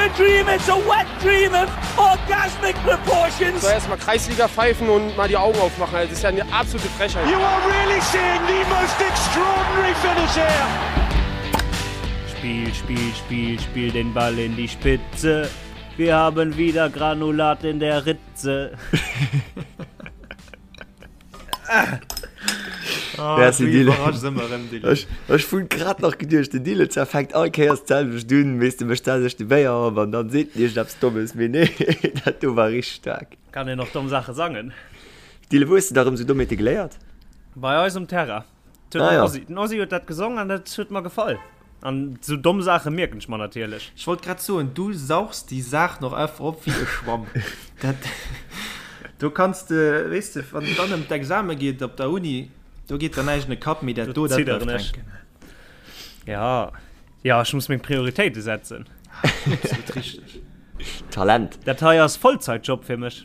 a dream, it's a wet dream of orgasmic proportions. So erstmal Kreisliga pfeifen und mal die Augen aufmachen. Das ist ja eine absolute Frechheit. You are really seeing the most extraordinary finish here. Spiel, Spiel, Spiel, spiel den Ball in die Spitze. Wir haben wieder Granulat in der Ritze. Ah, Merci, Dylan. Ech, ech hunn grad nach geduecht, den Dylan zwar fänkt all Kéiers d'selwecht un, weess de, mécht d'selwecht de Béier op an dann seet en iergendeppes Dommes, mee nee, dat do war richteg staark. Kann een och domm Saache sangen. Dylan, wou hues de da rëm sou Dommheete geléiert? Bei eis um Terrain. Den Ah, ja. Ossi, den Ossi huet dat gesong an dat huet mer gefall. An sou domm Saache mierken ech mer natierlech. Ech wollt grad soen, du sauchs déi Saach noch einfach op wéi e Schwamm. Dat, do kanns de, weess de, wann et dann ëm d'Exame geet op der Uni, do geet der näischt an de Kapp, mee dat do, dat zidderen bleift ech. hänken. Ja, ja, ech muss meng Prioritéite setzen. Absolut richteg. Talent. Dat hei ass Vollzeitjob fir mech.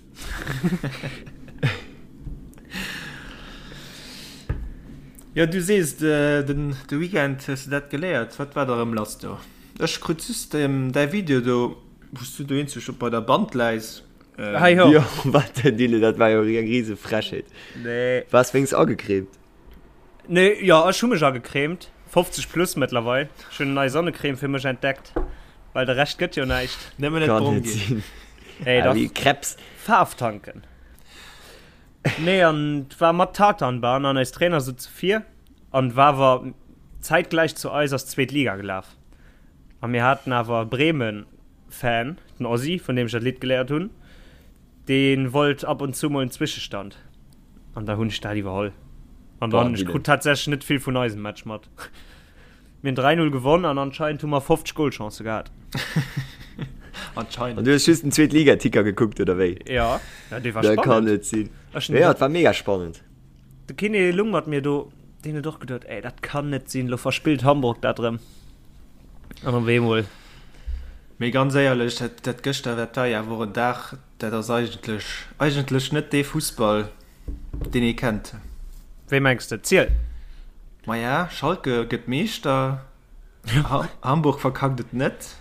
Jo, du sees, den de Weekend hues de dat geléiert. Wat war da rëm lass do? Ech krut just däi Video do, wou s du do eenzeg op bei der Band läis. Hei ho. Jo, wat denn, Dylan, dat war jo eng rise Frechheet. Nee. Waars wéinst agecremt? Nee, jo, ech hu mech agecremt. 50 plus mëttlerweil. Ech hunn eng nei Sonnecreme fir mech entdeckt, well de Rescht gëtt jo näischt. Nëmmen net Kann brong net ginn. sinn. Hey, Ah, dach. wéi Krebs. Faarf tanken. Nee, an et war mat Tatanbahn an eis Trainer souze vir an war awer zäitgläich zu eis ass d'zweet Liga gelaf. A mir haten awer e Bremen-Fan, den Ossi, vun deem ech dat Lidd geléiert hunn, dee wollt ab und zu mol en Zwischestand. An da hunn ech dat iwwerholl. An dann, ech krut tatsächlech net vill vun eisem Match mat. Mir hunn 3, 0 gewonn an anscheinend hu mer 50 Golchancë gehat. Anscheinend. An du hues just den Zweetliga-Ticker gekuckt, oder wéi? Ja, ja dee war Dat kann spannend. net sinn. Ech hunn Ja, et war mega spannend. De Kiné lung mat mir do, deen huet och geduet, ey, dat kann net sinn, lo verspillt Hamburg dat erëm. An op eemol. Mee ganz éierlech, dat, dat gëschter, dat war jo awer och en Dag, dat ass eigentlech, eigentlech net dee Fussball, deen ee kennt. Wéi mengs de? Ziel! Maja, Schalke gëtt Meeschter, Hamburg verkackt et net.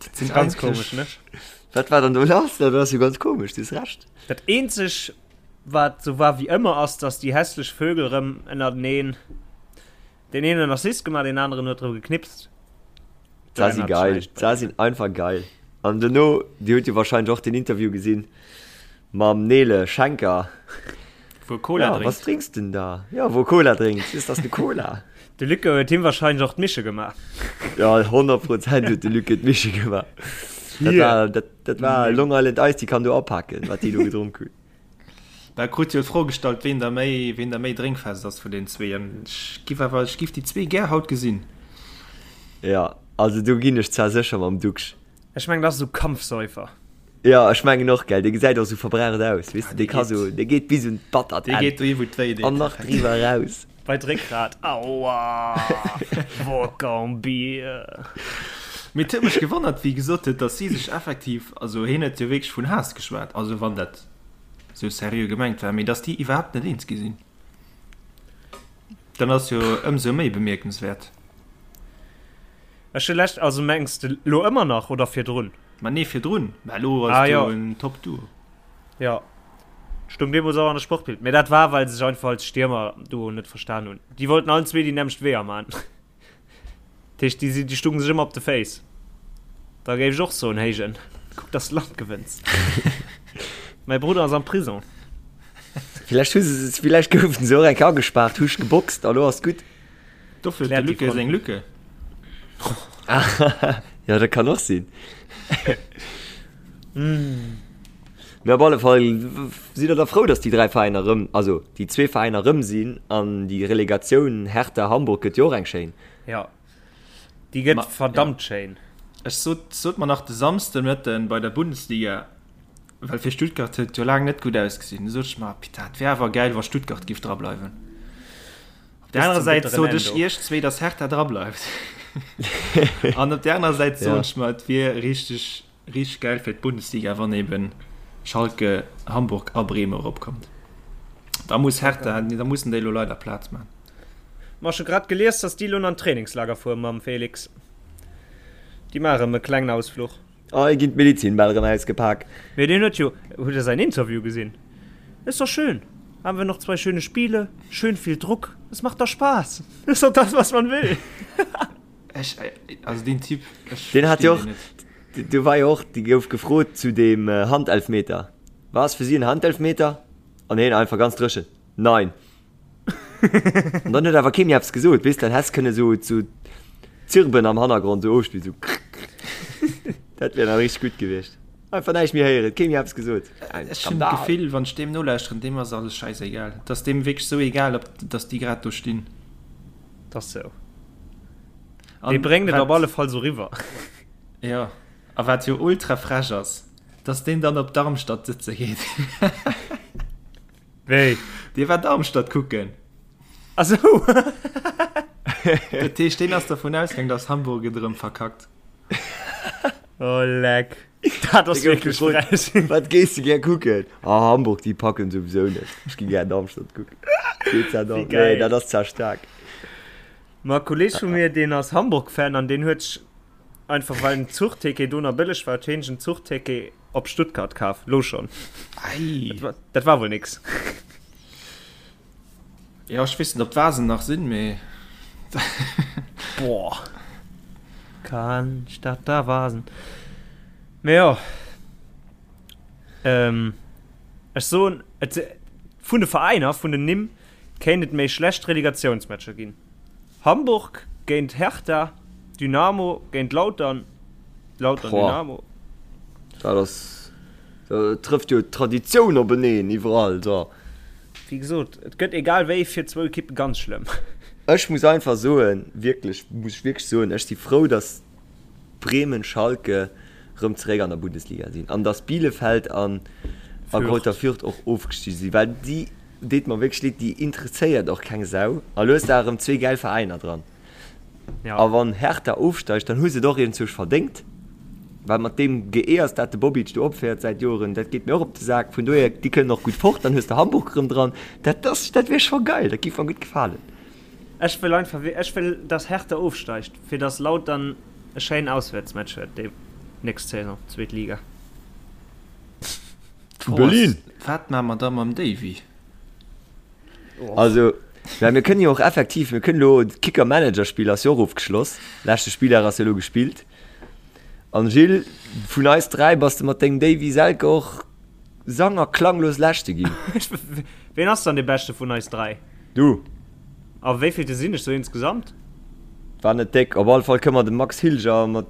Dat sinn ganz komesch, ne? Wat war dann do lass? Dat ass jo ganz komesch, du hues Recht. Dat eenzeg, wat sou war wéi ëmmer, ass, datt déi hässlech Vögel erëm ënnerteneen, deen een huet en Assist gemaach, deen aneren huet erëm geknipst. D'Sa si geil, d'Sa sinn einfach geil. An dono, Dir hutt jo wahrscheinlech och den Interview gesinn mam Nele Schenker. Wou e Cola Ja, drénkt. was drinks denn da? Ja, wou e Cola drénkt. Ist das ne Cola? De Lücke huet him wahrscheinlech och d'Mische gemaach. Ja, 100 Prozent huet de Lücke d'Mische gemaach. Dat war, dat, dat war Long Island Ice, déi kann do apaken, wat déi do gedronk hunn. Da krut jo d'Fro gestallt, ween der méi, ween der méi drénkfest ass vun den zwee. An ech giff awer, ech giff déi zwee gär haut gesinn. Ja, also do ginn ech zwar sécher mam Duxch. Ech mengen, dat ass esou Kampfsäufer. Ja, ech mengen och, gell, dee gesäit och sou verbraucht aus, weess de, dee ka sou, dee geet bis un d'battert Dee Enn geet dohi wou et wéi deet. an nach driwwer eraus. Bei d'Réckgrat, Aua! Wodka und Bier. Mee et huet mech gewonnert, wéi e gesot huet, datt si sech effektiv, also hien huet jo wierklech vun Haass geschwat, also wann dat sou seriö gemengt war, mee datt déi iwwerhaapt net eens gi sinn, dann ass jo ëmsou méi bemierkenswäert. Ech hu lescht, also mengs de lo ëmmer nach oder virdrun? Ma nee, virdrun, mä elo ass Ah, jo jo. en Top Duo. Jo, stung deemools och an der Sportbild, mee dat war well se sech einfach als Stiermer-Duo net verstan hunn. Déi wollten allen zwee déi nämmlecht Weeër man. Dat heescht, déi si, déi stungen sech ëmmer op de Féiss. Da géif ech och soen, Héijen, kuck dass de Land gewënns. Mäi Brudder ass am Prison. Villäicht hu se, villäicht goufen se och eng Kéier agespaart, hu sech geboxt a lo ass gutt. Dofir huet de Lücke seng Lücke. Ja, dat kann och sinn. Mee op alle Fall sidd der da frou, datt déi 3 Veräiner erëm, also déi zwee Veräiner erëm sinn an déi Relegatioun Hertha Hamburg gëtt jo och eng schéin. Ja, déi gëtt Ma, verdammt ja. schéin. Ech sot, sot mer nach de Samsden Mëtten bei der Bundesliga, well fir Stuttgart huet et jo laang net gutt ausgesinn, du sot ech mer, Putain, et wär awer gäil, wa Stuttgart giff drableiwen. Op der anerer Säit sot ech iech zwee, datt Hertha drableift. An op der anerer Säit soen ech mer, et wier richteg, richteg gäil fir d'Bundesliga, wann eben Schalke, Hamburg a Bremen eropkommt. Da muss Hertha, da mussen déi elo leider Plaz man. Ma ech hu grad gelies, datt déi elo an d'Trainingslager fuere mam Felix. Déi maache erëm e klengen Ausfluch. Hei ginn d'Medizinbäll erëm ausgepak. Mee deen huet jo, hutt der säin Interview gesinn? Ist doch schön, haben wir noch zwei schöne Spiele, schön viel Druck, es macht doch Spaß, ist doch das was man will. Ech, also deen Typ, ech Deen hat jo och, do war jo och, dee gouf gefrot zu deem Handelfmeter, War es für Sie ein Handelfmeter? An hien einfach ganz dréchen, Nein. An dann huet awer kee méi eppes gesot, weess, dann häss kënne sou sou Zirben am Hannergrond sou ofspillen, sou krrk. Dat wär nach richteg gutt gewiescht. Einfach näischt méi héieren, kee méi eppes gesot. Ein Ech hunn Skandal. d'Gefill, wann ech deem nolauschteren, deem ass alles schäisegal. Et ass deem wierklech sou egal, ob dass déi grad do stinn. Dat ass sou. Dee bréngt et op alle Fall sou riwwer. Jo, a wat jo ultra frech ass, dass deen dann op Darmstadt sëtze geet. Wéi? Dee war Darmstadt kucken. Ah sou. Dat heescht, deen ass dervun ausgaang, dass Hamburg et erëm verkackt. Oh leck. Dat ass wierklech frech. Wat gees de gär kucken? Ah, Hamburg, déi packen souwisou net. Ech gi gär Darmstadt kucken. Geet dat Wéi an? geil. Nee, dat ass zwar staark. Ma e Kolleeg vu mir, deen ass Hamburg-Fan an deen huet sech Einfach well en Zuchticket do nach bëlleg war, huet heen sech en Zuchticket op Stuttgart kaf. Lo schon. Ei. Dat war, dat war wuel nix. Jo, ech weess net, ob d'Vasen nach sinn, mee. Boah. Cannstatter Vasen. Mee jo. Ähm, ech soen, et, vun de Veräiner, vun den Nimm, kéint et méi schlecht Relegatiounsmatcher ginn. Hamburg géint Hertha, Dynamo géint Lautern, Lautern Dynamo. Dat ass, do trëfft jo d'Traditioun openeen iwwerall da. Wéi gesot, et gëtt egal wéi fir zwou Ekippe ganz schlëmm. Ech muss einfach soen, wierklech, muss ech wierklech soen, ech si frou, datt Bremen, Schalke rëm zeréck an der Bundesliga sinn an datt Bielefeld an a Greuther Fürth och ofgestigen sinn, well déi Deet mer wierklech leed, déi interesséiert och keng Sau. A lo hues de awer erëm zwee gäil Veräiner dran. Ja. A wann Hertha ofsteigt, dann hu se et och iergendzwousch verdéngt. Well mat deem Geeërs, dat de Bobic do opféiert säit Joren, dat geet mir och op de Sak. Vun dohier, déi kënnen och gutt fort. Dann hues de Hamburg erëm dran. Dat ass, dat wier scho geil, dat giff mer gutt gefalen. Ech wëll einfach, ech wëll, dass Hertha ofsteigt, fir dass Lautern e schéinen Auswäertsmatch huet déi nächst Saison, zweet Liga. Zu Berlin! Wat maa mer da mam Davy? Also, well mir kënnen jo och effektiv, mir kënnen elo, d'Kicker-Manager-Spill ass jo och ofgeschloss, leschte Spilldag ass jo elo gespillt. An Gilles, vun eis 3 bass de mat dengem Davy Selke och sang a klanglos Leschte ginn. Ween ass dann dee Beschte vun eis 3? Du. A wéivillte sinn ech sou insgesamt? War net déck. Op alle Fall kënne mer dem Max Hilger mat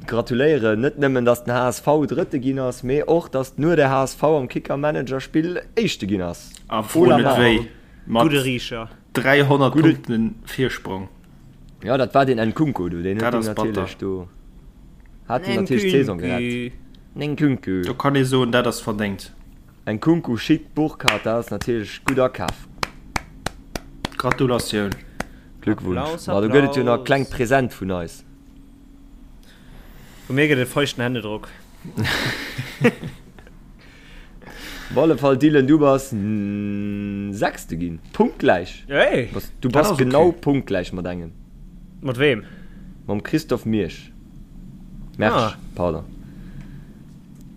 Gratuléieren, net nëmmen dass den HSV Drëtte ginn ass, mee och dass nur der HSV am Kicker Manager Spill Éischte ginn ass. A fro net wéi, mat Gudde Riicher. 300 Punkten Virsprong. Jo, dat war deen Nkunku do, deen huet Dat ass batter. natierlech do, hat him natierlech d'Saison gerett. Nkunku. Do kann ee soen, dat ass verdéngt. Nkunku, Schick, Burkhardt, dat ass natierlech gutt akaf. Gratulatioun. Glückwunsch. Ma do gëtt et jo nach e klengt Present vun eis. Vu mir gëtt et feuchten Händedrock. Op alle Fall Dylan, du bass Sechste ginn, punktgläich. Hey, du bass genau okay. punktgläich mat engem. Mat weem? Mam Christophe Miersch. Mersch, ah. pardon.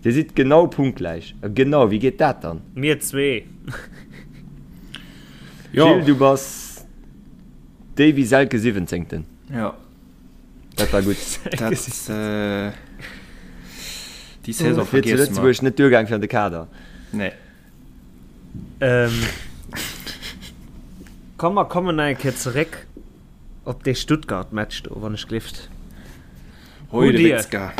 Dir sidd genau punktgläich. Genau, wéi geet dat dann? Mir zwee. Jo. Gilles, du bass Davy Selke Siwwenzéngten. Ja. Dat war gutt. Dat, äh, déi Saison Fir zu vergiesse mer. Lëtzebuerg net duergaang fir an de Kader. Nee. Ähm, komm, mer kommen nach eng Kéier zeréck op dee Stuttgart-Match do, wann ech gelift. Hoi, Hutt de Dir, Witzka.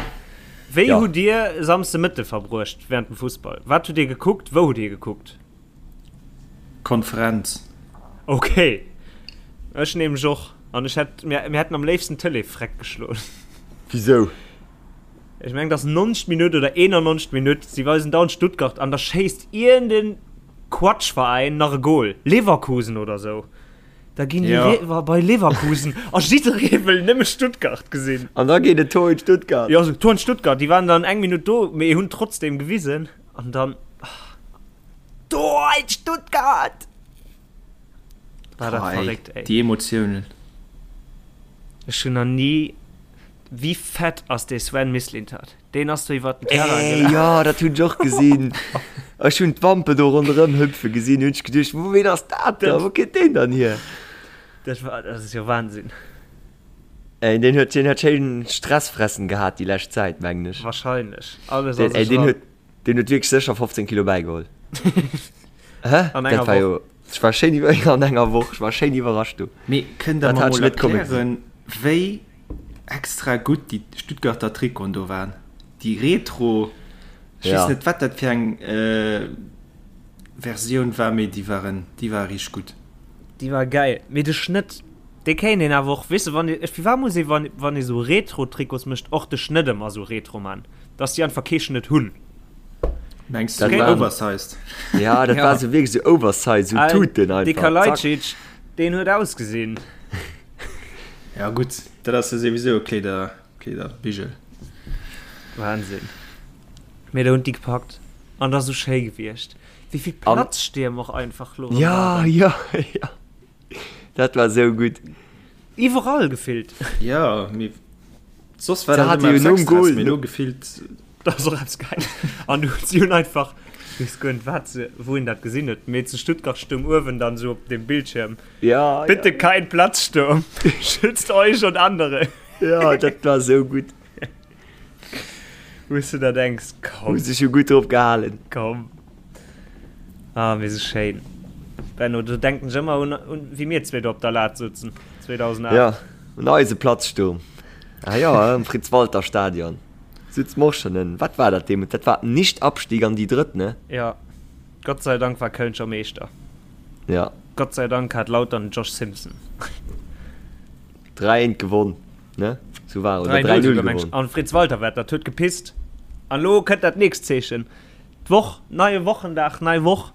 wéi Ja. hutt Dir Samsde Mëtte verbruecht während dem Fussball? Wat hutt Dir gekuckt? Wou hutt Dir gekuckt? Konferenz. Ok, ech nämlech och. An ech hätt, mir, mir hätten am léifsten d'Tëlee freck geschloen. Wisou? Ech mengen, et ass 90. Minutt oder 91. Minutt, si weisen dauernd Stuttgart an da schéisst iergend Quatschveräin nach e Goal, Leverkusen oder sou. Da ginn déi Ja. Lever bei Leverkusen a jidderee wëll nëmme Stuttgart gesinn. An da geet et Tor in Stuttgart. Jo, sou Tor in Stuttgart, déi waren dann eng Minutt do, mee hunn trotzdem gewisen an dann. Tor in Stuttgart! War dat Boah, ey, verréckt, ey. déi Emotiounen. Ech hunn nach ni. Wéi fett ass dee Sven Mislintat? Deen ass do iwwert den Terrain Ey, gelaf. jo, dat hunn ech och gesinn. Ech hunn d'Wampe do ronderëm hüpfe gesinn, hunn ech geduecht, Wou, ween ass dat da? Wou kënnt deen dann hier? Dat war, dat ass jo Wahnsinn. Ey, deen huet, deen huet schéin Stressfressen gehat déi lescht Zäit, mengen ech. Wahrscheinlech. Alles a sech eran. Deen huet wierklech sécher 15 Kilo bäigeholl. Hä? An enger Dat war Woch. jo, ech war schéin iwwer, an enger Woch, ech war schéin iwwerrascht du. Mee kënnt der Dat mer hat ech mol net komme gesinn. erklären, wéi extra gutt déi Stuttgarter Trikoten do waren? Déi Retro, ech weess Ja. net wat dat fir eng Versioun war, mee déi waren, déi ware richteg gutt. Déi war gäil. Mee de Schnëtt, dee kéint een awer och, weess de, wann ee, firwat muss ee wann, wann ee sou Retro-Trikots mécht, och de Schnëtt ëmmer sou retro man, dass déi einfach kee Schnëtt hunn? Mengs Dat du waren- oversized? Ja, dat Ja. war sou wierklech sou oversized, sou Tuten De einfach. Zack. Kalajdzic, deen huet ausgesinn. Ja gutt, dat ass jo souwisou e Kleeder, Kleederbigel. Wahnsinn. Mee do hunn déi gepackt an dat ass sou schéi gewiescht. Wéi vill Platzstierm och einfach lo Ja, waren. ja, ja. Dat war sou gutt. Iwwerall gefillt. Ja, mee soss war Da dat hat ëmmer jo eppes nom Extras, Goal mee lo gefillt. Dat ass och eppes geil. An du, si hunn einfach, ech weess guer net wat se, wou een dat gesinn huet, mee zu Stuttgart stoung uewen dann sou op dem Bildschierm, Ja, Bitte ja. kein Platzsturm, schützt euch und andere. Ja, dat war sou gutt. Wou s du der denks, komm. Hu sech jo gutt drop gehalen. Komm. Ah, mee sou schéin. Benno, do denken ech ëmmer un, un wéi mir zwee do op der Lat souzen, 2008. Ja, un eise Platzsturm. Ah jo, am Fritz-Walter-Stadion. Sutz mer och schonn en. Wat war dat deemools? Dat war Nicht-Abstieg an déi Drëtt, ne? Ja. Gott sei Dank war Köln scho Meeschter. Ja. Gott sei Dank hat Lautern den Josh Simpson. 3 1 gewonn, ne? Sou war oder 3-0 3-0 souguer, meng ech. gewonn. An Fritz Walter war dat huet gepisst. An lo kënnt dat nächst Zeechen. D'Woch, neie Wochendag, nei Woch.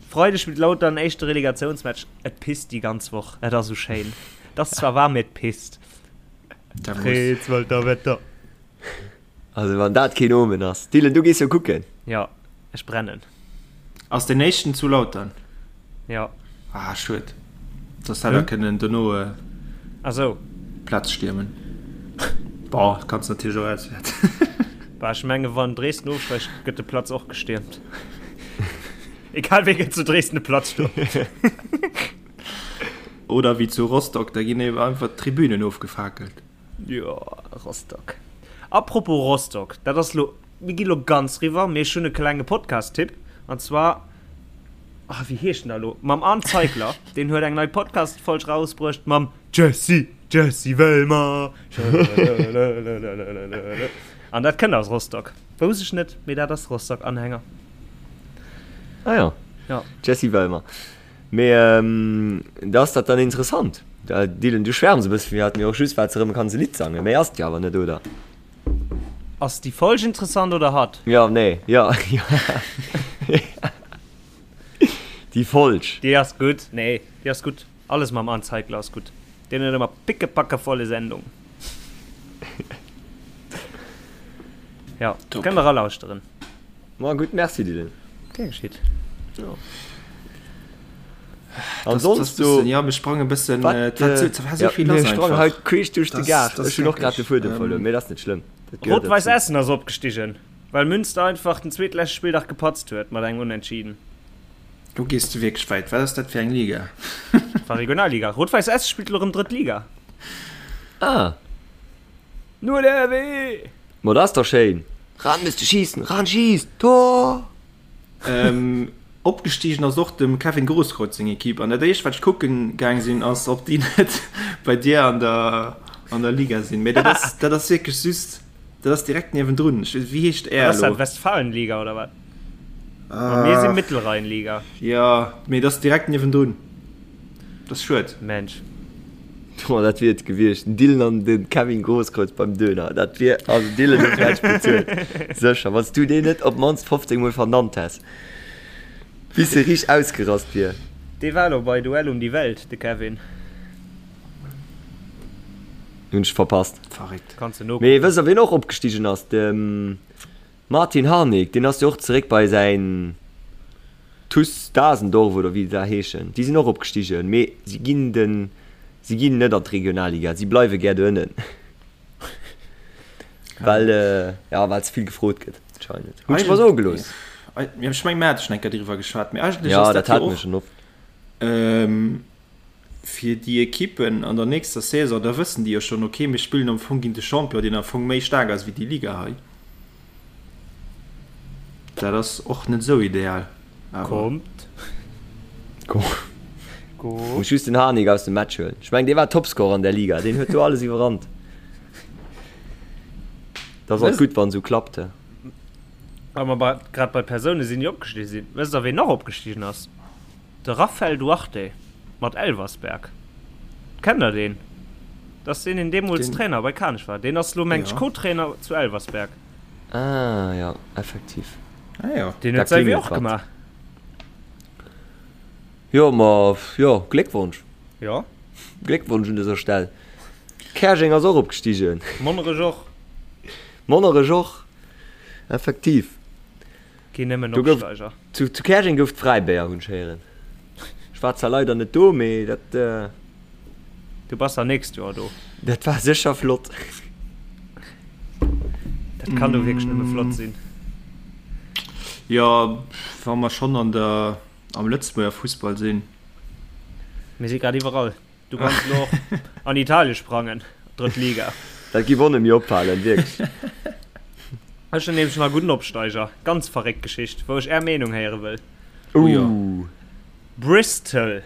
Freideg spillt Lautern éischte Relegatiounsmatch. Et pisst déi ganz Woch. Et ass sou schéin. Et ass zwar waarm, mee et pisst. Dat muss. Fritz Walter Wetter. Also wann dat keen Omen ass. Dylan, du gees jo kucken. Jo, ech brennen. Ass deen éischten zu Lautern? Jo. Ah, schued. Soss hätt der kënnen dono Ah sou. Platz stiermen. Bon, kanns natierlech och auswäerts. Bah, ech menge wann Dresden ofsteigt, gëtt de Platz och gestiermt. Egal wéi gëtt zu Dresden de Platz stoen. Oder wéi zu Rostock, da ginn eben einfach d'Tribünen ofgefakelt. Jo, Rostock. Apropos Rostock, dat ass lo, mir gi lo ganz riwwer, mee ech hunn e klenge Podcast-Tipp, an zwar, ah, wéi heescht en da lo, mam Arndt Zeigler, deen huet eng nei Podcast-Folg rausbruecht mam Jessy, Jessy Wellmer. An dat kënnt aus Rostock. Wousst ech net, mee dat ass Rostock-Anhänger. Ah jo, Ja. Jessy Wellmer. Mee da ass dat dann interessant. Dylan, du schwärms e bësse vun mir, hat mir och just wat se erëm kann se Lidd sangen. Méi ass et jo awer net, oder? Ass déi Folg interessant oder hatt? Jo, nee, jo, jo. Déi Folg. Déi ass gutt. Nee, déi ass gutt. Alles mam Arndt Zeigler ass gutt. Deen huet ëmmer pickepackevolle Sendung. Jo, kënnt der eralauschteren. Ma gutt, merci Dylan. Gär geschitt. Jo. An sonst so. Ja, mir sprangen e bëssen. Wat, Äh, dat, dat war so ja, vill mir lass sprangen einfach. haut queesch duerch de Das- Gaart. das Ech hunn och grad de Fuedem ähm, verluer, mee dat ass net schlëmm. Dat gehéiert Rot-Weiß derzou. Essen ass opgestigen, well Münster einfach den zweetleschte Spilldag gepatzt huet mat engem Unentschieden. Do gees du wierklech wäit. Wat ass dat fir eng Liga? War Regionalliga. Rot-Weiß Essen spillt elo rëm drëtt Liga. Ah, Nur der RW! Ma dat ass dach schéin! Ran müsste schießen, ran schießt, Tor! Ähm, opgestigen ass och dem Kevin Grosskreutz seng Equipe an dat éischt wat ech kucken gaang sinn ass ob déi net bei dir an der an der Liga sinn. Mee dat ass dat ass wierklech just dat ass direkt niewendrun. Ech weess wéi heescht Wat ass är dat elo? Westfalenliga oder wat? Ma mir si Mittelrheinliga. Jo, mee dat ass direkt niewendrun. Dat ass schued. Mensch. Oh, dat wier et gewiescht, den Dylan an de Kevin Grosskreutz beim Döner. Dat wier, also Dylan, dat hätt ech bezuelt. Sécher, wann s du deen net op d'mannst 15 Mol vernannt häss, bis e riicht ausgerast wier. Dee war elo bei Duell um die Welt, de Kevin. Hunn ech verpasst. Verréckt. Kanns de Mee nokucken. wësst der, wien och opgestigen ass? De Martin Harnik, deen ass jo och zeréck bei säin. TuS Dasendorf oder wéi se da heeschen, déi sinn och opgestigen, mee si ginn den, si ginn net an d'Regionalliga, si bleiwe gär do ënnen. Well, ja, well ze vill gefrot gëtt anscheinend. Hunn ech mer soe gelooss. Ech meng, mir hate schonn eng Kéier driwwer geschwat, mee eigentlech ass dat jo och fir déi Ekippen an der nächster Saison, da wëssen déi jo schonn, okay, mir spillen am Fong géint de Champion, deen am Fong méi staark ass wéi déi Liga hei. Dat ass och net esou ideal, awer. Kommt. Muss just den Harnik aus dem Match huelen. Ech mengen, dee war Topscorer an der Liga, deen huet do alles iwwerrannt. Dat ass alt gutt, wann esou klappt. Wa mer grad bei Persoune sinn, déi opgestigen sinn, wësst der, ween nach opgestigen ass? De Raphael Duarte mat Elversberg. Kennt der deen? Dat ass deen, deen deemools Trainer bei Kanech war. Deen ass elo, mengt ech, Co-Trainer zu Elversberg. Ah jo, effektiv. Ah jo. Deen huet säi Wee och gemaach. Jo, ma jo, Gléckwonsch. Jo. Gléckwonsch un dëser Stell. Käerjeng ass och opgestigen. Monnerech och. Monnerech och, effektiv. Ginn nëmmen Opsteiger. Zu, zu Käerjeng gouf et Fräibéier, hunn ech héieren. Ech war zwar leider net do, mee dat. Du bass dann nächst Joer do. Dat war sécher flott. Dat kann do wierklech nëmme flott sinn. Jo, wa mer schonn an der, am Lëtzebuerger Fussball sinn. Mir si grad iwwerall. Du kanns elo och an Italien sprangen, drëtt Liga. Dat giff och net méi opfalen, wierklech. Ech hunn nämlech nach e gudden Opsteiger. Ganz verréckt Geschicht, wou ech är Meenung héiere wëll. Ouh. Bristol,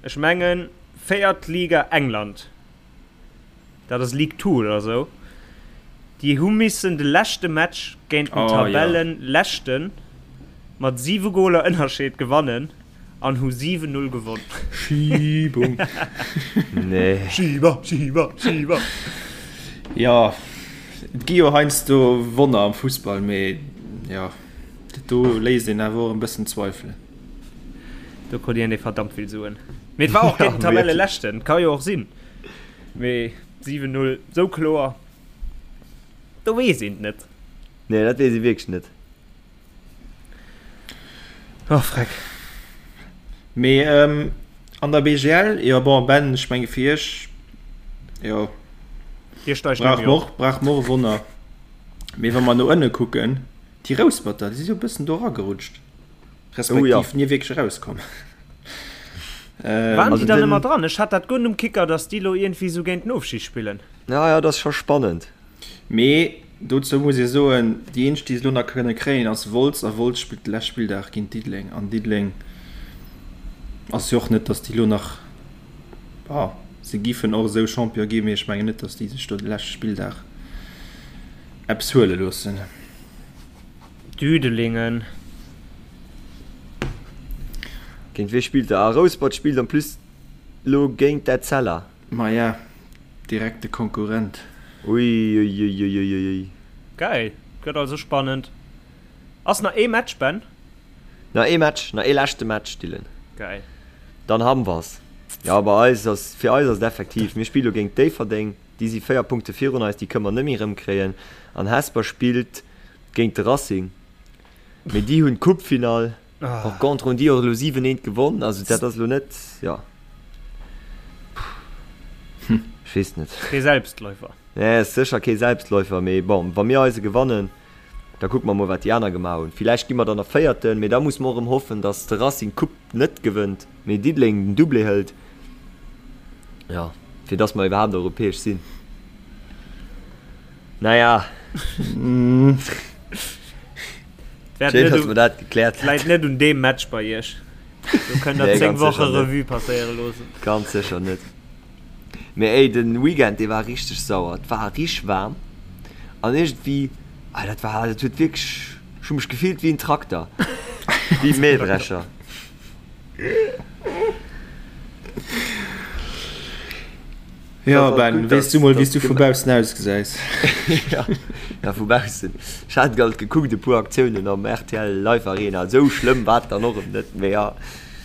ech mengen véiert Liga England, dat ass League Two oder esou, déi hu missen de leschte Match géint den Tabellenleschten mat 7 Goler Ënnerscheed gewannen. An hu 7, 0 gewonn. Schiebung. Nee. Schieber, Schieber, Schieber. Jo, et gi jo heiansdo Wonner am Fussball, mee jo, dat do léisst een awer och en bëssen zweifelen. Do krut een verdammt vill Suen. Mee et war och géint den Tabelleleschten, ka jo och sinn. Mee 7, 0, sou kloer, do weess een et net. Nee, dat weess ee wierklech net. Oh freck. Mee ähm, an der BGL, jo bon Ben, ech menge fir iech, jo, Dir steigt brauch net méi mer op. och, brauch mer och e Wonner. Mee wa mer no ënne kucken, déi Rousperter, déi si jo e bëssen do eragerutscht, Oh ja. respektiv ni wierklech erauskomm. Waren Ähm, déi Also dann den, ëmmer dran? Ech hat dat guer net um Kicker, datt déi lo iergendwéi sou géint den Ofstig spillen. ja, ja, dat ass scho spannend. Mee dozou muss ee soen, déi eenzeg déi se elo nach kënne kréien ass Wolz a Wolz spillt de leschte Spilldag géint Diddeleng an Diddeleng ass jo och net, datt déi elo nach, bon se giffen och esou Champion ginn, mee ech mengen net, datt déi sech do de leschte Spilldag eppes huele loossen. Düdelingen. Géint wee spillt der? Ah, Rouspert spillt en plus elo géint d'Etzella. Maja, direkte Konkurrent. Uiuiuiuiui. Geil, gëtt also spannend. Ass nach ee Match, Ben? Nach ee Match, nach ee leschte Match, Dylan. Geil. Dann ham wers. Jo, bei eis ass, fir eis ass et effektiv, mir spille lo géint Déifferdeng, déi si 4 Punkte virun eis, déi kënne mer net méi erëmkréien. An Hesper spillt géint de Racing, mee déi hunn d'Coupefinall. Par contre hunn déi och elo 7, 1 gewonn, also dat ass elo net, jo, ech weess net. Kee Selbstläufer. Nee, ass sécher kee Selbstläufer, mee bon, wa mir eise gewannen, da kucke mer mol, wat déi aner gemaach hunn. Villäicht gi mer dann nach Véierten, mee da musse mer och erëm hoffen, datt de Racing d'Coupe net gewënnt, mee Diddeleng den Doublé hëlt, jo, fir datt mer iwwerhaapt europäesch sinn. Naja. Schéin, dass mer dat gekläert hätten. Läit net un deem Match bei iech. Do kënnt der 10 Woche Revue passéiere loossen. Ganz sécher net. Mee ey, den Weekend, dee war richteg sauer. Et war richteg waarm an iergendwéi, ah dat war, dat huet wierklech, ech hu mech gefillt wéi en Trakter, wéi e Mähdrescher. Jo Ben, weess du mol wéis du vu baussen ausgesäis? Ja vu baussen. Ech hat alt gekuckt e puer Aktiounen am rtl Live Arena, esou schlëmm war et dann och erëm net, mee ja.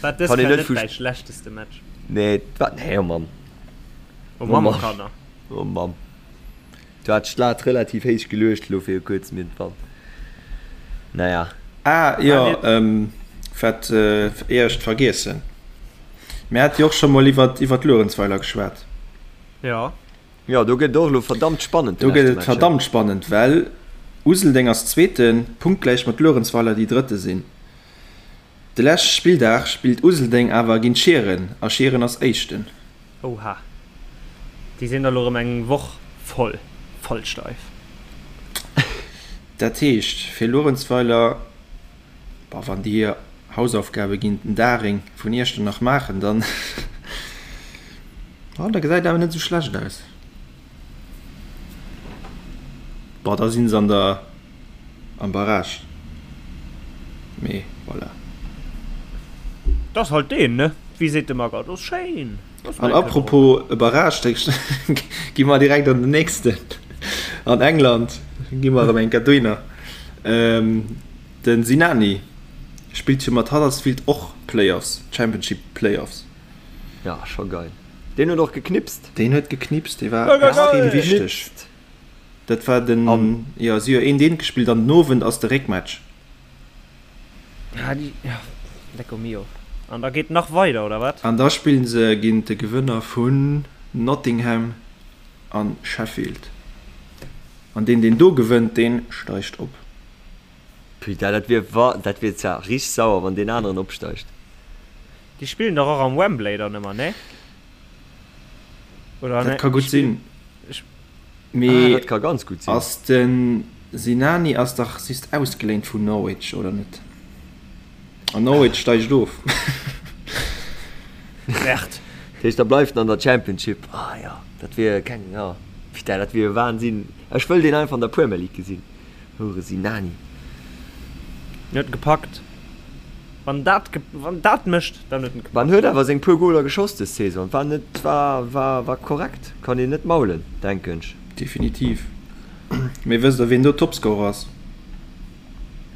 War dës Kéier net däi schlechteste Match? Nee, et war, nee oh Mann. Oh Mammekanner. Oh Mamm. Du hat d'Lat relativ héich geluecht elo fir e kuerzem iergendwann. Naja. Ah jo, wat ier ech et vergiessen. Mir hate jo och scho mol iwwert iwwert Luerenzweiler geschwat. Jo. Jo, do gëtt et och elo verdammt spannend. Do gëtt et verdammt spannend, well Useldeng ass Zweeten, punktgläich mat Luerenzweiler, déi Drëtte sinn. De leschte Spilldag spillt Useldeng awer géint Schieren a Schieren ass Éischten. Oha, déi sinn da lo rëm eng Woch voll, voll steif. Dat heescht fir Luerenzweiler, boah, wann déi hir Hausaufgabe géint den Daring vun Iechternach maachen, dann, oh, da gesäit awer net esou schlecht aus. Boah, da sinn se an der, am Barrage. Mee voilà. Dat ass halt deen, ne? Wéi seet de Magger, dat ass schéin. An apropos e Barrage, da gi mer direkt an den nächsten. An England gi mer erëm eng Kéier dohinner. De Sinani spillt jo mat Huddersfield och Playoffs, Championship Playoffs. Ja, scho geil. Deen huet och geknipst. Deen huet geknipst, dee war extrem wichteg. Dat war den, jo, si hu jo eent eent gespillt an den Owend ass de Réckmatch. Ah, déi, ja, lecko mio. An da geet nach weider, oder wat? An da spillen se géint de Gewënner vun Nottingham a Sheffield. An deen, deen do gewënnt, dee steigt op. Putain, dat wier wa, dat wier zwar richteg sauer, wann deen aneren opsteigt. Déi spillen dach och am Wembley dann ëmmer, nee? Oder Dat ka gutt sinn. Mee ah, dat ka ganz gutt sinn. Ass de Sinani ass dach just ausgeléint vun Norwich, oder net? An Norwich steigt of. Merde. Dat heescht, da bleift en an der Championship. Ah ja, dat wier keng, ja. Putain, dat wier Wahnsinn. Ech wëll deen einfach an der Premier League gesinn. Houre Sinani. En huet gepackt. Wann dat, wann dat mécht, dann huet en gepackt. En huet awer seng puer Goler geschoss des Saison. War net, war, war, war korrekt. Kann een net maulen, denken ech. Definitiv. Mee wësst der wien do Topscorer ass?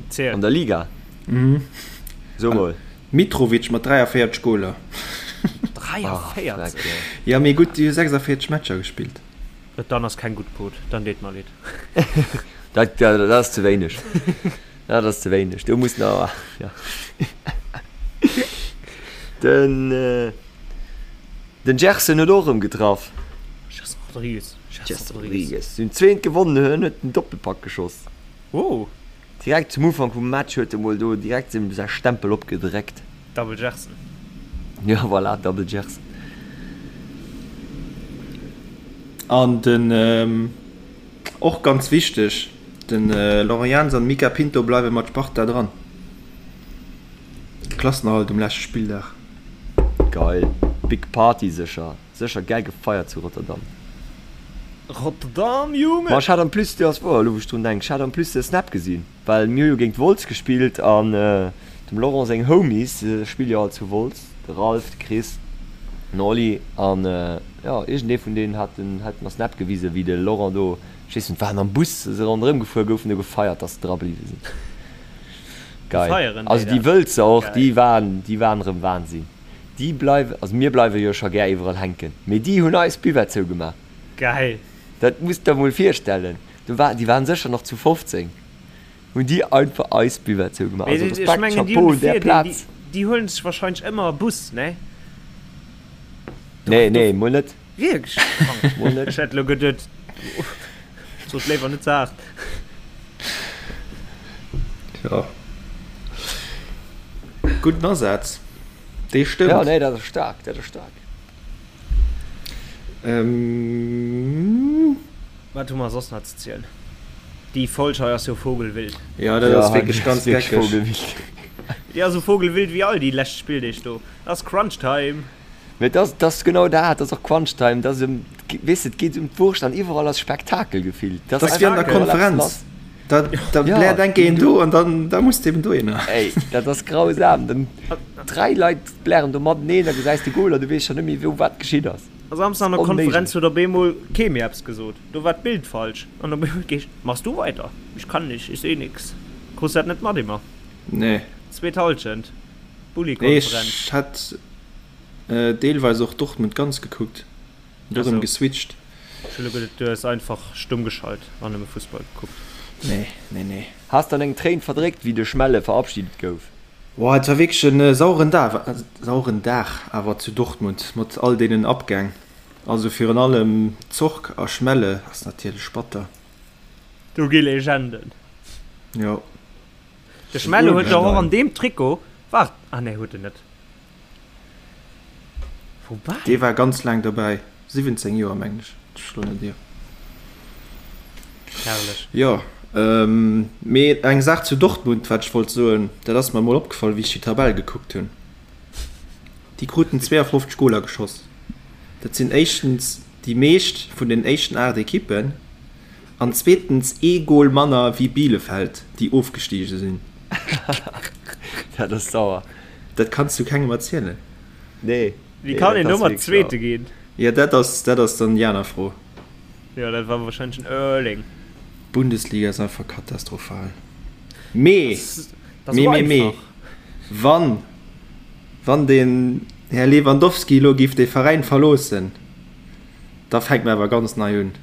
Ziel. An der Liga? Mhm. So mol. Mitrovic mat 43 Goler. 43? Jo, mee gutt, déi hu 46 Matcher gespillt. Dann ass keng gutt Quote, dann deet mer leed. Dat, dat ass ze wéineg. Dat ass ze wéineg. Do muss nach, ja. Den, den Gerson huet och erëm getraff. Gerson Rodrigues. Gerson Rodrigues. Si hunn zweent gewonnen, hien huet den Doppelpack geschoss. Oh. Direkt zum Ufank vum Match huet e mol do direkt säi Stempel opgedréckt. Double Gerson. Jo, voilà, Double Gerson. An den, och ganz wichteg, de Laurent Jans an Mica Pinto bleiwe mat Sparta dran. Klassenerhalt um leschte Spilldag. Geil, big Party sécher. Sécher gäil gefeiert zu Rotterdam. Rotterdam, Junge! Ma ech hat en plus, jo ass wouer, elo wou ech drun denken, ech hat en plus de Snap gesinn, well mir hu jo géint Wolz gespillt an dem Laurent seng Homies spille jo all zu Wolz, de Ralph, de Chris, den Oli an jo iergendee vun deenen hat den hat mer Snap gewisen, wéi de Laurent do, ech weess net, waren am Bus, se ronderëm gefuer goufen, do gefeiert, dass se dra bliwwe sinn. Geil. Also déi Wëlzer och, déi waren, déi waren erëm Wahnsinn. Déi bleiwen, also mir bleiwe jo scho gär iwwerall hänken, mee déi hunn eis Buvette zougemaach. Geil! Dat muss der mol virstellen. Do war, déi waren sécher nach zu 15, hunn déi einfach eis Buvette zougemaach. Also Respekt, Chapeau un där Plaz. Déi huelen sech wahrscheinlech ëmmer e Bus, ne? Nee, nee, mol net. Wierklech? Mol net. Ech hätt elo geduet, sot léiwer net ze haart. Tja. Gudden Asaz. Dee stëmmt. Ja, nee, dat ass staark, dat ass staark. Ähm. Wat hu mer soss nach ze zielen? Déi Folg hei ass jo vogelwild. Ja, dat ass wierklech ganz geckeg. Déi ass esou vogelwild wéi all déi lescht Spilldeeg do. Dat ass Crunch Time. Mee dat ass, dat ass genau dat, dat ass och Crunch Time. Dat ass ëm, weess de, et geet ëm d'Wurscht an iwwerall ass Spektakel gefillt. Dat ass wéi an der Konferenz. Da, da ja, bläert enke een do an dann da muss eben dohinner. Ey, dat ass grausam. Dann dräi Leit blären do mateneen, da gesäis de Goal a du weess scho net méi wou wat geschitt ass. A Samsden an der Konferenz huet op eemol kee méi eppes gesot. Do war d'Bild falsch an op eemol geescht, Machst du weiter? Ich kann nicht, ich seh nix. Krus dat net mat immer? Nee. Zweet Halschent, Nee, Bulli-Konferenz. ech hat deelweis och Dortmund ganz gekuckt. Du erëm geswitcht. Ech hu lo geduet du häss einfach stumm geschalt an nëmme Fussball gekuckt. Nee, nee, nee. Has dann eng Tréin verdréckt wéi de Schmelle verabschiedet gouf? Boah, et war wierklech en sauren Dag, sauren Dag awer zu Dortmund mat all deenen Abgäng. Also virun allem Zorc a Schmelle ass natierlech batter. Do gi Legenden. Jo. De Schmelle huet dach och an deem Trikot, waart, ah nee huet en net. Woubäi. Dee war ganz laang dobäi, 17 Joer mengen ech, ech schloen net ier. Herrlech. Jo, mee eng Saach zu Dortmund, wat ech wollt soen, dat ass mer emol opgefall, wéi ech déi Tabell gekuckt hunn. Déi kruten 52 Goler geschoss. Dat sinn éischtens déi meescht vun den éischten 8 Ekippen an zweetens ee Gol manner wéi Bielefeld, déi ofgestige sinn. Dat ass sauer. Dat kanns du kengem erzielen. Nee. Wéi kann een domat Zweete ginn? Jo, dat ass, dat ass dann déi aner Fro. Jo, dat war wahrscheinlech den Erling. D'Bundesliga ass einfach katastrophal. Mee, mee, mee, mee, wann, wann den Här Lewandowski elo géif de Veräin verloossen, da fänkt mer awer ganz nei un.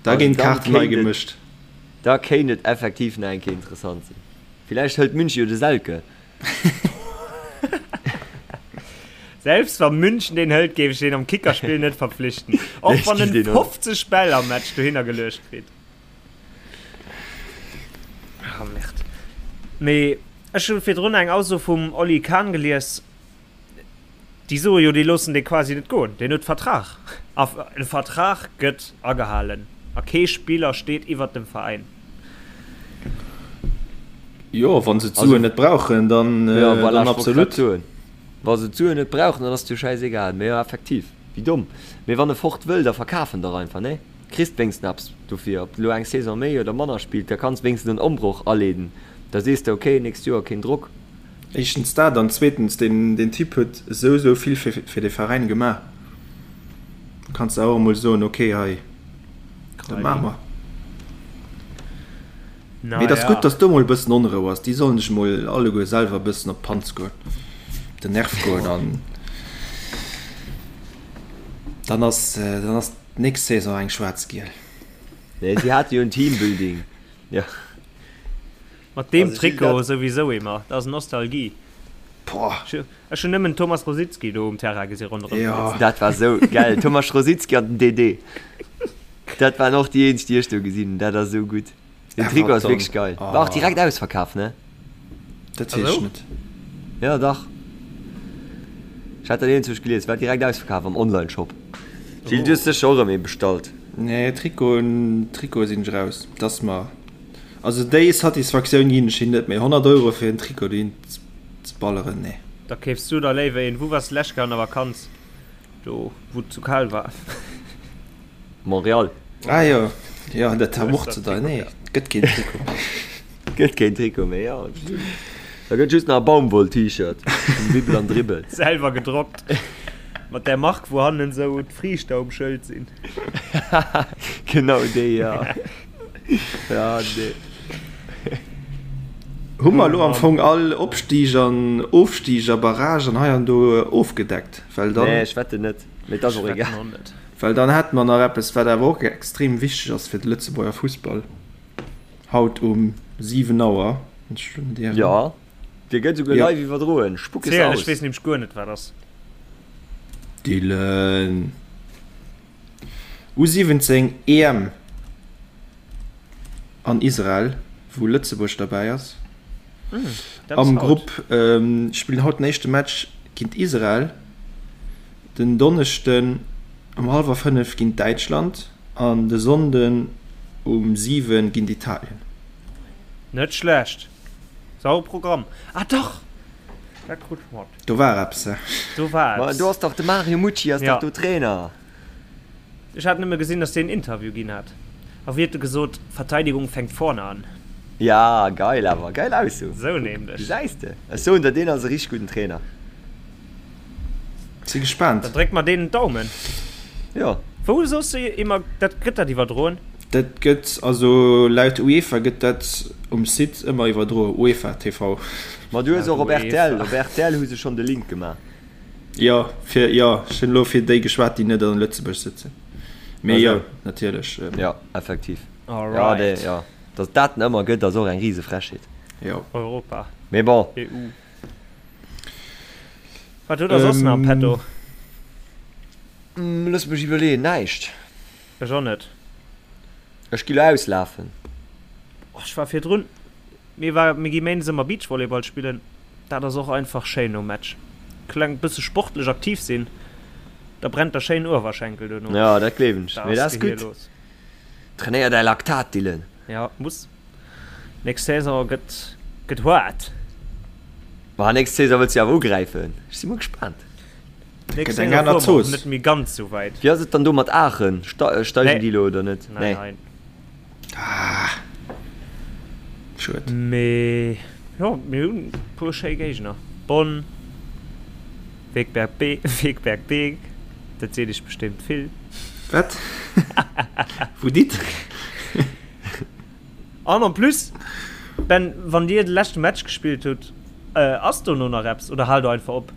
Da ginn d'Kaarten nei gemëscht. Da kéint et effektiv nach eng Kéier interessant sinn. Villäicht hëlt München jo de Selke. Selbst wa München deen hëlt, géif ech deen am Kickerspill net verpflichten. Och wann en 50 Bäll am Match dohinner geluecht kritt. Ah, Merde. Mee ech hu virdrun eng Ausso vum Oli Kahn gelies. Déi soe jo, déi loossen dee quasi net goen. Deen huet Vertrag. A e Vertrag gëtt agehalen. A kee Spiller steet iwwert dem Veräin. Jo, wa se d'Suen net brauchen, dann, jo, voilà, dann absolut. Wa se d'Suen net brauchen, dann ass et jo schäisegal. Mee jo, effektiv, wéi domm. Mee wann e fort wëll, da verkaf en dach einfach, nee? Kriss wéinstens eppes dofir. Ob de lo eng Saison méi oder manner spillt, da kanns wéinstens en Ombroch aleeden. Da sees de, okay, nächst Joer keen Drock. Éischtens dat an zweetens, deen, deen Typ huet esou, esou vill fir, fir de Veräin gemaach. Da kanns de och emol soen, okay, hei, dat maache mer. Mee et ass gutt, dass do mol e bëssen Onrou ass. Déi sollen sech mol alleguer selwer e bëssen op d'Panz goen, op den Nerv goen an dann ass, dann ass d'nächst Saison eng schwaarz-giel. Nee, si hate jo en Teambuilding. Jo. Mat deem Trikot souwisou emmer, dat ass Nostalgie. Boah. Ech hunn nëmmen Thomas Rosicky do um Terrain gesi ronderëm flitzen. Dat war sou gäil, Thomas Rosicky an den Dede. Dat waren och déi eenzeg, déi ech do gesinn hunn. Dat ass sou gutt. Den Trikot ass wierklech geil. War och direkt ausverkaf, ne? Dat weess ech net. Jo, dach. Ech hat dat iergendwou gelies. War direkt ausverkaf am Online-Shop. Gilles, du hues sécher och erëm ee bestallt. Nee, Trikoten, Trikote sinn ech raus. Dat ass mer, also déi Satisfaktioun ginn ech him net méi. 100 Euro fir en Trikot dohin ze balleren, nee. Da keefs du der léiwer een. Wou wars d'lescht Kéier an der Vakanz? Do wou et zu kal war. Montréal. Ah jo, jo dat war och ze deier. Nee, et gëtt keen Trikot méi. Gëtt keen Trikot méi, jo. Da gëtt just nach e Baumwoll-T-Shirt vum Wibbel an Dribbel. Selwer gedrockt. Mat där Mark wou hannen esou d'Friichter um Schëld sinn. Genau déi, jo. Ja, nee. Hu mer elo am Fong all Opstig an Ofstig a Barrage an hei an do ofgedeckt? Well dann. Nee, ech wetten net. Mee et ass och egal. Well dann hätte mer nach eppes, wat awer och extrem wichteg ass fir de Lëtzebuerger Fussball, haut um 7 Auer, wann ech elo net ieren. Jo, dee gëtt esouguer live iwwerdroen. Spuck es aus. Ech weess nämlech guer net, wat ass. Dylan. U17 EM an Israel, wou Lëtzebuerg derbäi ass. Am Grupp spillen haut den éischte Match géint Israel, den Donneschden um hallwer 5 géint Däitschland an de Sonnden um 7 géint Italien. Net schlecht. Sauer Programm. Ah dach! Dat krut ech mat. Do war eppes, he? Do war eppes. Ma do ass dach de Mario Mucci ass dach do Trainer. Ech hat nëmme gesinn, dass deen en Interview ginn hat. A wéi huet e gesot, Verteidigung fänkt vorne an. Ja, geil awer, geil Ausso. Sou nämlech. Gesäis de, ech soen der, deen ass e richteg gudden Trainer. Si gespaant. Dann dréck mer deenen d'Daumen. Jo. Wou soss de immer, dat gëtt dat iwwerdroen? Dat gëtt, also laut UEFA gëtt dat um Site ëmmer iwwerdroen, UEFA TV. Ma du hues och op rtl, op rtl hu se schonn de Link gemaach. Jo, fir, jo, ech hunn elo fir déi geschwat, déi net an Lëtzebuerg sëtzen. Mee jo, natierlech. Jo, effektiv. Jo, dee, jo. Datt dat en ëmmer gëtt, ass och eng rise Frechheet. Jo. Europa. Mee bon. EU. Wat hutt der soss nach am Petto? Looss mech iwwerleeën, näischt. Ech och net. Ech gi lo auslafen. Oh, ech war virdrun, mir war, mir gi méindes ëmmer Beachvolleyball spillen. Dat ass och einfach schéin nom Match. Kleng bësse sportlech aktiv sinn, da brennt der schéin Uewerschenkel duerno. Jo, dat gleewen ech. Da Mee ass dat ass d'Gehier gutt. los. Trainéier däi Laktat, Dylan. Jo, muss. Nächst Saison gëtt, gëtt haart. Ma nächst Saison wëlls du awer ugräifen. Ech si mol gespaant. Nächst Gëtt eng Saison aner fuere mer och Zooss. net méi ganz sou wäit. Wéi ass et dann do mat Aachen? Steigen Nee. déi elo oder net? Nein, Nee. nein. Ah, schued. Mee jo, mir hunn e puer schéi Géigner. Bonn, Wegberg Be Wegberg Beek, dat seet iech bestémmt vill. Wat? Wou dit? An en plus, Ben, wann dir de leschte Match gespillt hutt, ass dono nach eppes oder haalt der einfach op?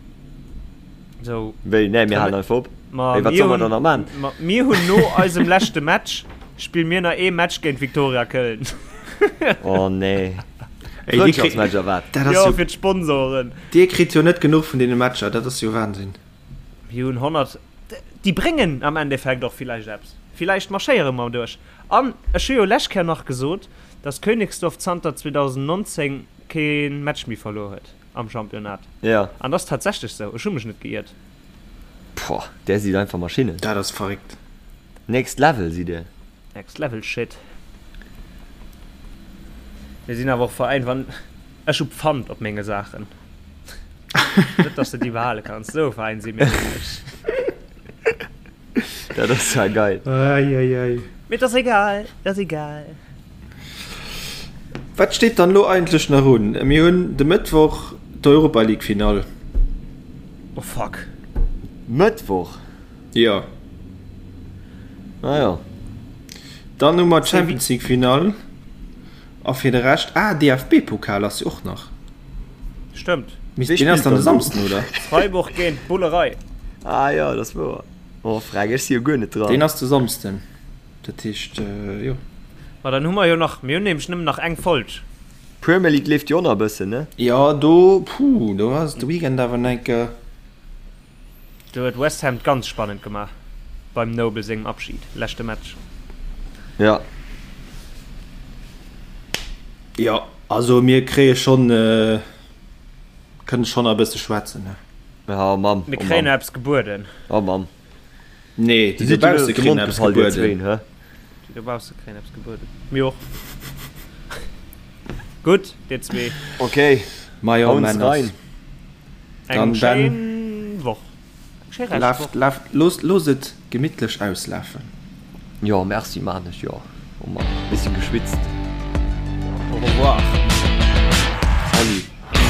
Sou. Wéi? Nee, mir halen einfach op. Ma Wéi, wat mir solle mer hunn, dann nach man? ma mir hunn no eisem leschte Match spille mir nach ee Match géint Viktoria Köln. Oh nee. Ey, dir kritt, Frëndschaftsmatch a wat? dat ass Jo, jo, fir d'Sponsoren. dir kritt jo net genuch vun deene Matcher, dat ass jo Wahnsinn. Mir hunn 100, déi bréngen am Endeffekt och villäicht eppes. Villäicht marschéiere mer duerch. An ech hu jo lescht Kéier nach gesot, dass Königsdorf zanter 2019 kee Match méi verluer huet am Championnat. Ja. An dat ass tatsächlech sou. Ech hu mech net geiert. Poah, där sidd einfach Maschinnen. Dat ass verréckt. Next Level sidd dir. Next Level Shit. Mir sinn awer och Veräin, wann ech hu Pfand op menge Saachen. Net dass de déi behale kanns. Sou e Veräin si mir nämlech. Dat ass ja geil. Ei, ei, ei. Mee et ass egal, et ass egal. Wat steet dann elo eigentlech nach un? Mir hunn de Mëttwoch d'Europa League Finall. Oh fuck. Mëttwoch? Jo. Ah jo. Dann hu mer d'Champions League Finall a fir de Rescht, ah DFB-Pokal ass jo och nach. Stëmmt. Deen ass dann de Samsden, oder? Freiburg géint Bullerei. Ah jo, dat ass wouer. Oh freck, ech si jo guer net dran. Deen ass de Samsden, dat heescht jo. Ma dann hu mer jo nach, mir hunn nämlech nëmmen nach eng Folg. Premier League leeft jo och nach e bëssen, ne? Jo, do, puh, do ass de Weekend awer enke. Do huet West Ham et ganz spannend gemaach beim Noble sengem Abschid, leschte Match. Jo. Jo, also mir kréie schonn, kënne schonn nach e bësse schwätzen, ne? Oh Mamm, Mir oh kréien Mamm. eppes gebueden. Oh Mamm. Nee, déi dobausse kréien eppes gebueden. Déi dobausse kréien eppes gebueden. Mir och. Gutt, dir zwee. Okay. Majo, Hauen Männers. rein. Eng Dann, Ben. schéin Woch. Eng schéi Reschtwoch. Laaft, laaft, loosst, loosst et gemittlech auslafen. Jo, merci, maan ech jo. Oh Mann, bisschen geschwitzt. Au revoir. Salut.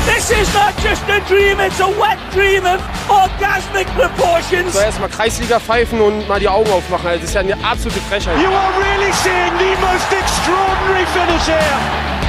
This is not just a dream, it's a wet dream of orgasmic proportions. Soll erstmal Kreisliga pfeifen und mal die Augen aufmachen. Also, das ist ja eine absolute Frechheit. You are really seeing the most extraordinary finish here.